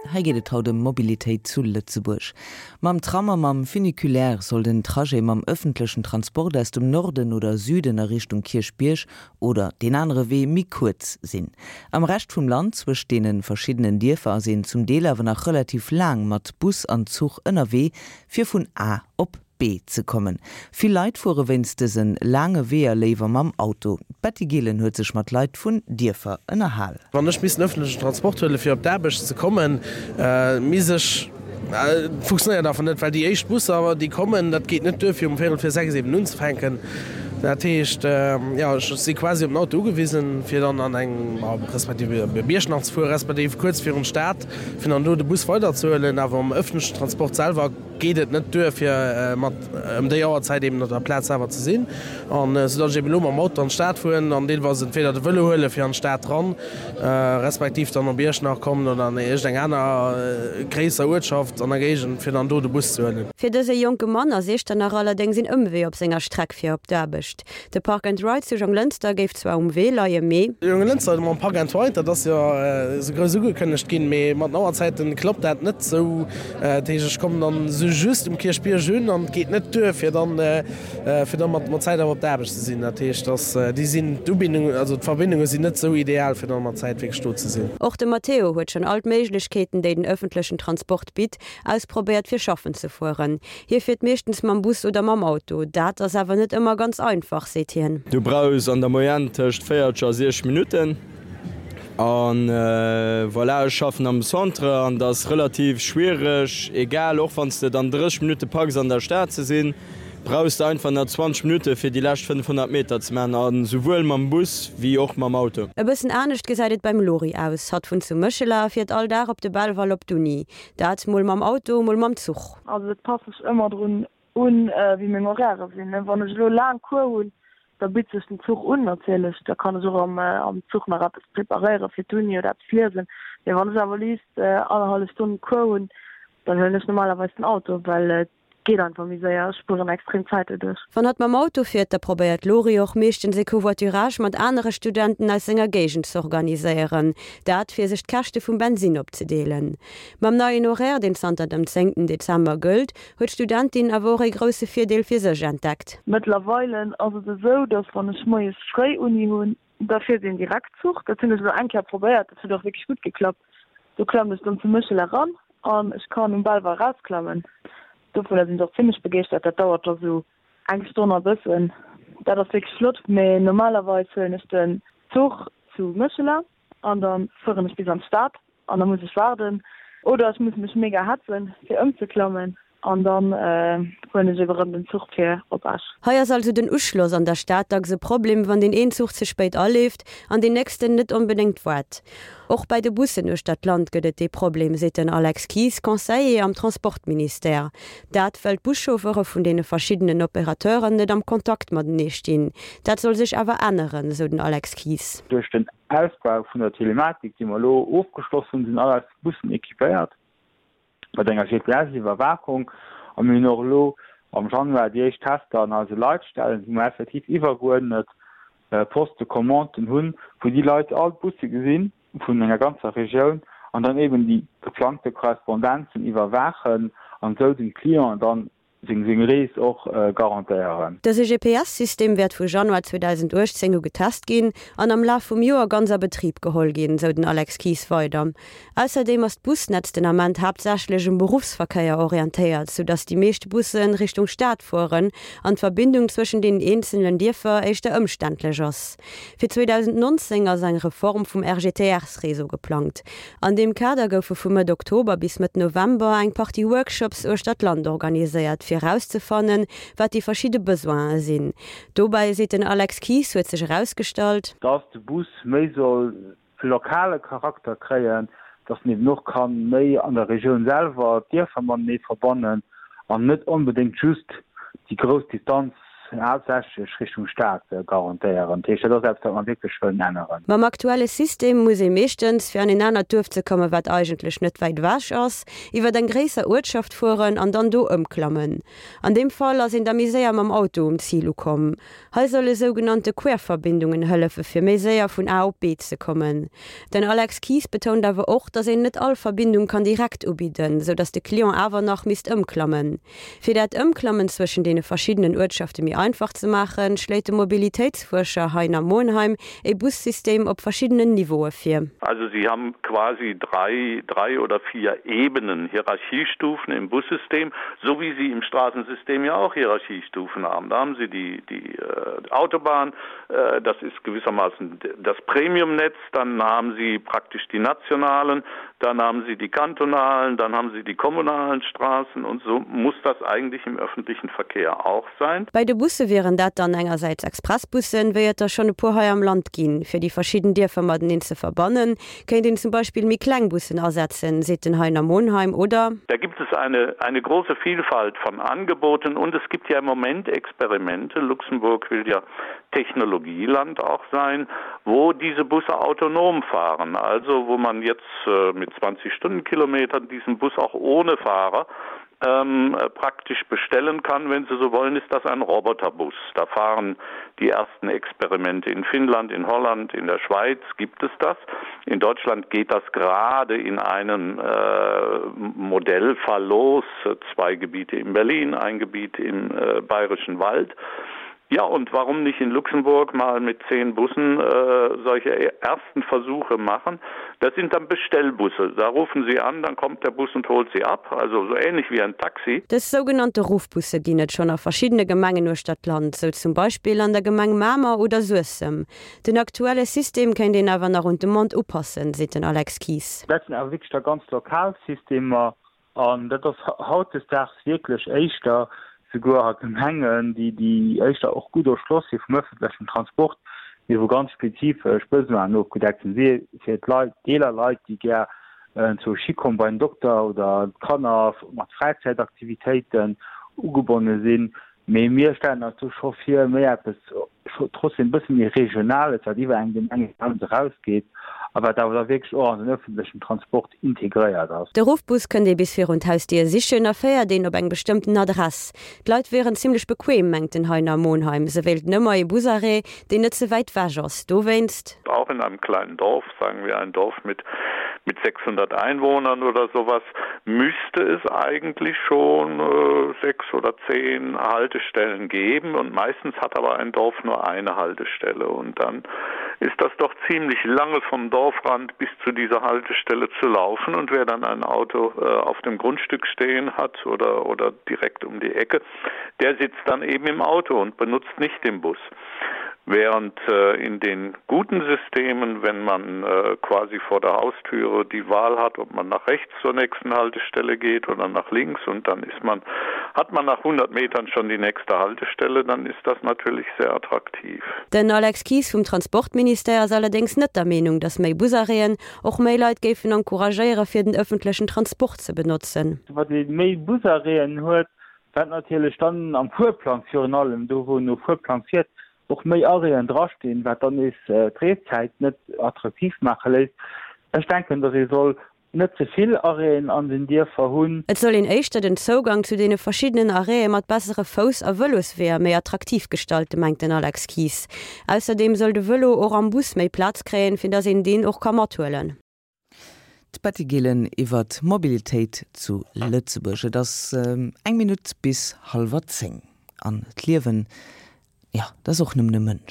Hei geet et haut ëm Mobilitéit zu Lëtzebuerg. Mam Tram a mam Funiculaire soll den Trajet mam ëffentlechen Transport aus dem Norden oder Süden a Richtung Kierchbierg oder deen anere Wee méi kuerz sinn. Am Rescht vum Land, zwëscht deene verschiddenen Dierfer, ass een zum Deel awer nach relativ laang mat Bus an Zuch ënnerwee, fir vun A op B ze kommen. Vill Leit fuere wéinst dëse laange Weeër léiwer mam Auto. D'Betty Gillen huet sech mat Leit vun Dierfer ënnerhal. Wann ech misst den ëffentlechen Transport huelen, fir op d'Aarbecht ze kommen, misst ech, et funktionéiert einfach net, well déi éischt Busser, déi kommen, dat geet net duer, fir um véierel vir 6 eben unzefänken. Dat heescht, jo, ech si quasi op den Auto ugewisen, fir dann an eng, respektiv op Iechternach ze fueren, respektiv kuerz virun d'Stad, fir dann do de Bus weiderzehuelen. Awer am ëffentlechen Transport selwer geet et net duer fir mat ëm déi Auerzäit eben op der Plaz selwer ze sinn an esou datt ech eben elo mam Auto an d'Stad fueren an deelweis entweder de Vëlo huele fir an d'Stad ran, respektiv dann op Iechternach kommen oder an iergend eng aner gréisser Uertschaft an der Géigend fir dann do de Bus ze huelen. Fir dëse jonke Mann ass Iechternach allerdéngs een Ëmwee op senger Streck fir op d'Aarbecht. De Park and Ride zu Jonglënster géif zwar um Wee leien, mee. Jonglënster mam Park and Ride, dat ass jo esou grouss ugekënnegt ginn, mee mat den Auerzäiten klappt dat net esou. Dat heescht, ech kommen dann esou just um Kierchbierg un an et geet net duer, fir dann, fir dann mat mat Zäit awer op der Aarbecht ze sinn. Dat heescht, dass déi sinn, d'Ubindung, also d'Verbindunge sinn net esou ideal, fir dann mat Zäit wierklech do ze sinn. Och de Matteo huet schonn all d'Méiglechkeeten, déi den ëffentlechen Transport bitt, ausprobéiert fir schaffen ze fueren. Hie fiert meeschtens mam Bus oder mam Auto. Dat ass awer net ëmmer ganz einfach, seet hien. Du brauchs an der Moyenne tëscht 40 a 60 Minutten. An voilà, ech schaffen am Centre an et ass relativ schwiereg, egal, och wann s de et an 30 Minutte packs an der Stad ze sinn, brauchs de einfach nach 20 Minutte fir déi lescht 500 Meter ze maachen, a souwuel mam Bus wéi och mam Auto. E bëssen anescht gesäit et beim Lori aus. Hatt wunnt zu Méchela a fiert all Dag op de Belval op d'Uni. Dat mol mam Auto, mol mam Zuch. Also et passt sech ëmmer drun un, wéi meng Horairë sinn. Wann ech elo laang Cours hunn, da bitt sech den Zuch un natierlech. Da kann ech och am Zuch nach eppes preparéiere fir d'Uni oder eppes liesen. Mee wann ech awer liicht annerhallef Stonn Cours hunn, dann huelen ech normalerweis den Auto, well et geet einfach méi séier. Ech spueren extrem Zäit doduerch. Wann hatt mam Auto fiert, da probéiert d'Lori och meeschtens e Covoiturage mat anere Studenten aus senger Géigend z'organiséieren. Dat fir sech d'Käschte vum Bensinn opzedeelen. Mam neien Horaire, deen zanter dem zéngten Dezember gëllt, huet d'Studentin awer och ee grousse Virdeel fir sech entdeckt. Mëttlerweile ass et esou, dass wann ech moies fréi Uni hunn, da fiert een Direktzuch. Dat hunn ech elo eng Kéier probéiert, dat huet och wierklech gutt geklappt. Do klammen ech dann zu Méchela eran an ech kann um Belval erausklammen. Dovunner sinn ech och zimmlech begeeschtert. Dat dauert da sou eng Stonn a bëssen. Dat ass wierklech flott. Mee normalerweis huelen ech den Zuch zu Méchela an da fueren ech bis an d'Stad an da muss ech waarden oder ech muss mech mega hetzen fir ëmzeklammen an dann huelen ech ebe rëm den Zuch fir op Esch. Hei ass also den Uschloss an der Stad dacks e Problem, wann deen een Zuch ze spéit aleeft an deen nächsten net onbedéngt waart. Och bäi de Bussen uechter d'Land gëtt et dee Problem, seet den Alex Kies, Conseiller am Transportministère. Dat well d'Buschauffere vun deene verschiddenen Operateuren net am Kontakt matenee stinn. Dat soll sech awer änneren, sou den Alex Kies. Duerch den Ausbau vun der Telematik, déi mer elo ofgeschloss hunn, sinn all eis Bussen équipéiert mat enger GPS-Iwwerwaachung a mir hunn och elo am Januar déi éischt Tester an eise Leitstellen, wou mer effektiv iwwergeuerdnet Postes de commanden hunn, wou déi Leit all d'Busse gesinn vun enger ganzer Regioun an dann eben déi geplangte Korrespondenzen iwwerwaachen an esou dem Client dann seng seng Rees och garantéieren. Dëse GPS-System wäert vu Januar 2018 u getest ginn an am Laf vum Joer ganz a Betrib geholl ginn, sou den Alex Kies weider. Ausserdeem ass d'Busnetz den Ament haaptsächlech um Beruffsverkéier orientéiert, sou datt déi meescht Busse Richtung Stad fueren an d'Verbindung zwëschen deenen eenzelen Dierfer éischter ëmständlech ass. Fir 2019 ass eng Reform vum RGTRs-Réseau geplangt. An deem Kader goufe vu Mëtt Oktober bis Mëtt November eng Partie Workshops uechter d'Land organiséiert, fir erauszefannen, wat déi verschidde Besoine sinn. Dobäi, seet den Alex Kies, huet sech erausgestallt. Dass de Bus méi soll e lokale Charakter kréien, dass en eben och ka méi an der Regioun selwer d'Dierfer matenee verbannen an net onbedéngt just déi grouss Distanz. haaptsächlech Richtung Stad garantéieren. Dat heescht, dat ass eppes, wat mer wierklech wëllen änneren. Mam aktuelle System muss ee meeschtens, fir an een anert Duerf ze kommen, wat eigentlech net wäit ewech ass, iwwert eng gréisser Uertschaft fueren an dann do ëmklammen. An deem Fall ass een da méi séier mam Auto um Zil ukomm. Hei solle sougenannte Querverbindungen hëllefe fir méi séier vun A op B ze kommen. Den Alex Kies betount awer och, datt een net all Verbindung kann direkt ubidden, sou datt de Client awer nach misst ëmklammen. Fir dat Ëmklammen zwëschen deene verschiddenen Uertschafte méi einfach ze maachen, schléit de Mobilitéitsfuerscher Heiner Monheim ee Bussystem op verschiddenen Niveaue vir. Also Sie haben quasi drei, drei oder vier Ebenen, Hierarchiestufen im Bussystem, so wie Sie im Straßensystem ja auch Hierarchiestufen haben. Da haben Sie die, die äh, Autobahn, äh, das ist gewissermaßen das Premiumnetz, dann haben Sie praktisch die nationalen, dann haben Sie die kantonalen, dann haben Sie die kommunalen Straßen und so muss das eigentlich im öffentlichen Verkehr auch sein. Bei de Busse wieren dat dann engersäits Expressbussen, wéi et der schonn e puer hei am Land ginn. Fir déi verschidden Dierfer mateneen ze verbannen, kéint een zum Beispill méi kleng Bussen asetzen, seet den Heiner Monheim, oder? Da gibt es eine, eine große Vielfalt von Angeboten und es gibt ja im Moment Experimente. Luxemburg will ja Technologieland auch sein, wo diese Busse autonom fahren, also wo man jetzt äh, mit 20 Stundenkilometern diesen Bus auch ohne Fahrer ähm, praktisch bestellen kann, wenn Sie so wollen, ist das ein Roboterbus. Da fahren die ersten Experimente in Finnland, in Holland, in der Schweiz gibt es das. In Deutschland geht das gerade in einem äh, Modellfall los, zwei Gebiete in Berlin, ein Gebiet im äh, Bayerischen Wald. Ja, und warum nicht in Luxemburg mal mit zehn Bussen äh, solche e-, ersten Versuche machen? Das sind dann Bestellbusse. Da rufen Sie an, dann kommt der Bus und holt sie ab, also so ähnlich wie ein Taxi. Dës sougenannte Ruffbusse ginn et schonn a verschiddene Gemengen uechter d'Land, sou zum Beispill an der Gemeng Mamer oder Suessem. Den aktuelle System kéint een awer nach un d'Demande upassen, seet den Alex Kies. Dat sinn awer wierklech da ganz lokal Systemer. An dat ass hautdesdaags wierklech éischter souguer a Gemengen, déi déi éischter och gutt erschloss si vum öffentlechen Transport, mee wou ganz spezifesch Besoinen ofgedeckt sinn, si fir d'Leit, eeler Leit, déi gär zur Schi kommen bei den Dokter oder d'Kanner mat Fräizäitaktivitéiten ugebonne sinn. Mee mir stellen eis do scho vir, méi eppes trotzdem e bësse méi Regionales, wat iwwer eng Gemengegrenz erausgeet a wat awer da wierklech och an den öffentlechen Transport integréiert ass. De Ruffbus kënnt ee bis virun d'Hausdier sichen a féiert een op eng bestëmmten Adress. D'Leit wieren zimmlech bequem, mengt den Heiner Monheim. Se wéilten ëmmer ee Busarrêt, deen net ze wäit wech ass. Dowéinst. Auch in einem kleinen Dorf, sagen wir ein Dorf mit mit 600 Einwohnern oder sowas, müsste es eigentlich schon äh, sechs oder zehn Haltestellen geben und meistens hat aber ein Dorf nur eine Haltestelle und dann ist das doch ziemlich lange vom Dorfrand bis zu dieser Haltestelle zu laufen und wer dann ein Auto äh, auf dem Grundstück stehen hat oder, oder direkt um die Ecke, der sitzt dann eben im Auto und benutzt nicht den Bus. Während äh, in den guten Systemen, wenn man äh, quasi vor der Haustüre die Wahl hat, ob man nach rechts zur nächsten Haltestelle geht oder nach links und dann ist man hat man nach 100 Metern schon die nächste Haltestelle, dann ist das natürlich sehr attraktiv. Den Alex Kies vum Transportministère ass allerdéngs net der Meenung, datt méi Busarrêten och méi Leit géifen encouragéiere fir den ëffentlechen Transport ze benotzen. Wat ee méi Busarrêten huet, Wat natierlech dann am Fuerplang virun allem, do wou en no Fuerplang fiert, och méi Arrêten drastinn, wat dann nees d'Reeszäit net attraktiv maache léisst. Ech denken, datt ee soll net ze vill Arrêten an den Dierfer hunn. Et soll een éischter den Zougang zu deene verschiddenen Arrêtë mat bessere Fouss a Vëlosweeër méi attraktiv gestalten, mengt den Alex Kies. Ausserdeem soll de Vëlo och am Bus méi Plaz kréien, fir datt een deen och ka mathuelen. D'Betty Gillen iwwer d'Mobilitéit zu Lëtzebuerg. Et ass eng Minutt bis hallwer 10. An d'Liewen, jo, dat ass och nëmmen e Mënsch.